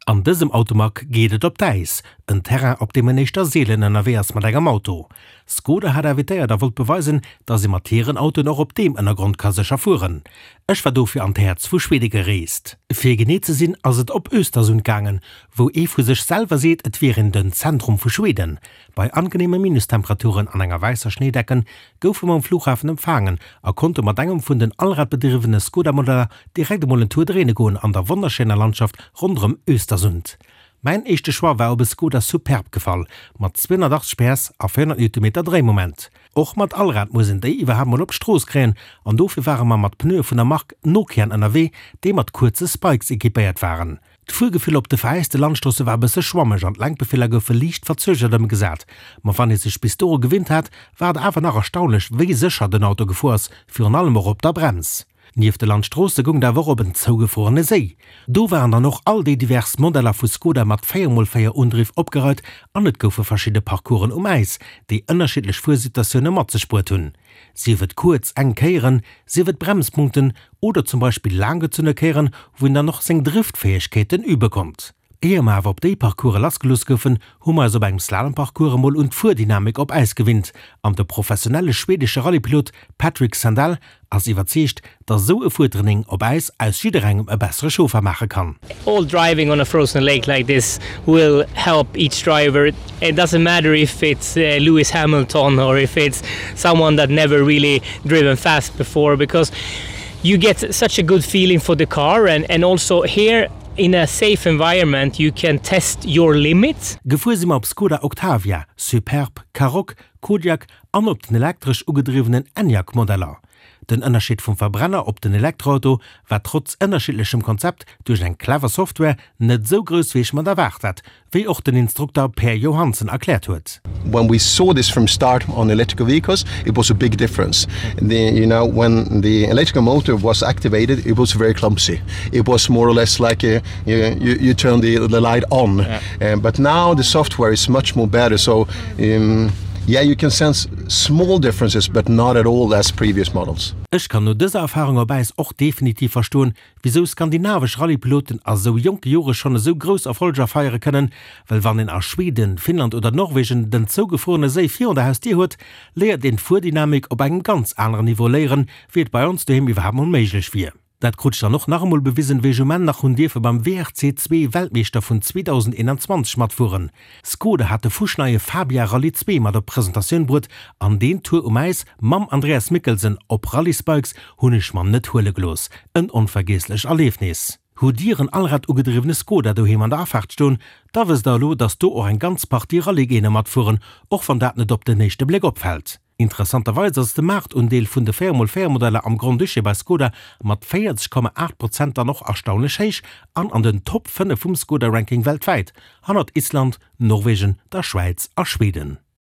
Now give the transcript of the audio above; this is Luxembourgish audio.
An dësem Automag geet et op d'Äis, en Terrain op deem en éischter seelen ënnerwee ass mat engem Auto. Skoda hat invitéiert a wollt beweisen, dass ee mat hiren Autoen och op deem Ënnergrond ka sécher fueren. Ech war dofir an d'Häerz vu Schwede gereest. Fir genee ze sinn ass et op Östersund gaangen, wou ee vu sech selwer seet, et wier een den Zentrum vu Schweden. Bei angeneeme Minustemperaturen an enger wäisser Schnéidecken goufe mer um Flughafen empfaangen a konnte mat engem vun den allradbedriwwene Skoda-Modeller direkt emol en Tour dréine goen an der wonnerschéiner Landschaft ronderëm Östersund. Mäin éischte Choix war op e Skoda Superb gefall, mat 280 PS a 400 Newtonmeter Dréimoment. Och mat Allrad muss een déi iwwerhaapt mol op d'Strooss kréien an dofir ware mer mat Pneue vun der Mark Nokian ënnerwee, déi mat kuerze Spikes equipéiert waren. D'Fuergefill op de veräiste Landstroosse war e bësse schwammeg an d'Lenkbefeeler goufe liicht verzögert ëmgesat. Ma wann ee sech bis doru gewinnt hat, war et awer nach erstaunlech, wéi sécher den Auto gefuer ass, virun allem och op der Brems. Nieft de Landstroosse goung et awer och op en zougefruerene Séi. Do waren dann och all déi divers Modeller vu Skoda mat 4 x 4 Undriff opgereit an et goufe verschidde Parcoursen um Äis, déi ënnerschiddlech Fuersituatioune mat sech bruet hunn. Sief et kuerz, enk Kéieren, sief et Bremspunkten oder zum Beispill laanggezunne Kéieren, wou een dann och seng Driftfäegkeeten übe konnt. Éier mer awer op déi Parcourse lassgelooss goufen, hu mer eis op engem Slalomparcours emol un d'Fuerdynamik op Äis gewinnt an de professionelle schwedesche Rallyepilot Patrick Sandell ass iwwerzeegt, dass esou e Fuertraining op Äis aus jidderengem e bessere Chauffer maache kann. All driving on a frozen lake like this will help each driver. It doesn't matter if it's Lewis Hamilton or if it's someone that never really driven fast before because you get such a good feeling for the car and, and also here in a safe environment you can test your limits. Gefuer si mer op Skoda Octavia, Superb, Karoq, Kodiaq an op den elektresch ugedriwwenen Enyaq Modeller. Den Ënnerscheed vum Verbrenner op den Elektroauto war trotz ënnerschiddlechem Konzept duerch eng clever Software net esou grouss wéi ech mer et erwaart hat, wéi och den Instrukter Per Johansen erkläert huet. When we saw this from start on electrical vehicles, it was a big difference. The, you know, when the electrical motor was activated, it was very clumsy. It was more or less like a, you, you, you turn the, the light on. Yeah. Um, but now the software is much more better. So um, yeah, you can sense small differences, but not at all as previous models. Ech kann no dëser Erfahrung op Äis och definitiv verstoen, wisou skandinavesch Rallypiloten a sou jonke Jore schonn esou grouss Erfolger feiere kënnen, well wann een a Schweden, Finnland oder Norwegen den zougefruerene Séi virun der Hausdier huet, léiert een d'Fuerdynamik op engem ganz aneren Niveau léieren, wéi et bei ons doheem iwwerhaapt mol méiglech wier. Dat krut ech dann och nach emol bewisen, wéi ech um Enn nach hunn dierfe beim WRC 2 Weltmeeschter vun 2021 matfueren. Skoda hat de fuschneie Fabia Rallye 2 mat op d'Presentatioun bruet an deen Tour um Äis mam Andreas Mikkelsen op Rallye-Spikes hunn ech mer net huele gelooss. En onvergiesslech Erliefnis. Hutt Dir en allrad-ugedriwwene Skoda doheem an der Afaart stoen, da wësst der elo, dass do och eng ganz Partie Rallye-Géiner matfueren, och wann dat net op den éischte Bléck opfält. Interessanterweis ass de Maartundeel vun de 4 x 4 Modeller am Grand-Duché bei Skoda mat 40,8 Prozent dann och erstaunlech héich an an den Top 5 vum Skoda-Ranking weltwäit, hannert Island, Norwegen, der Schwäiz a Schweden.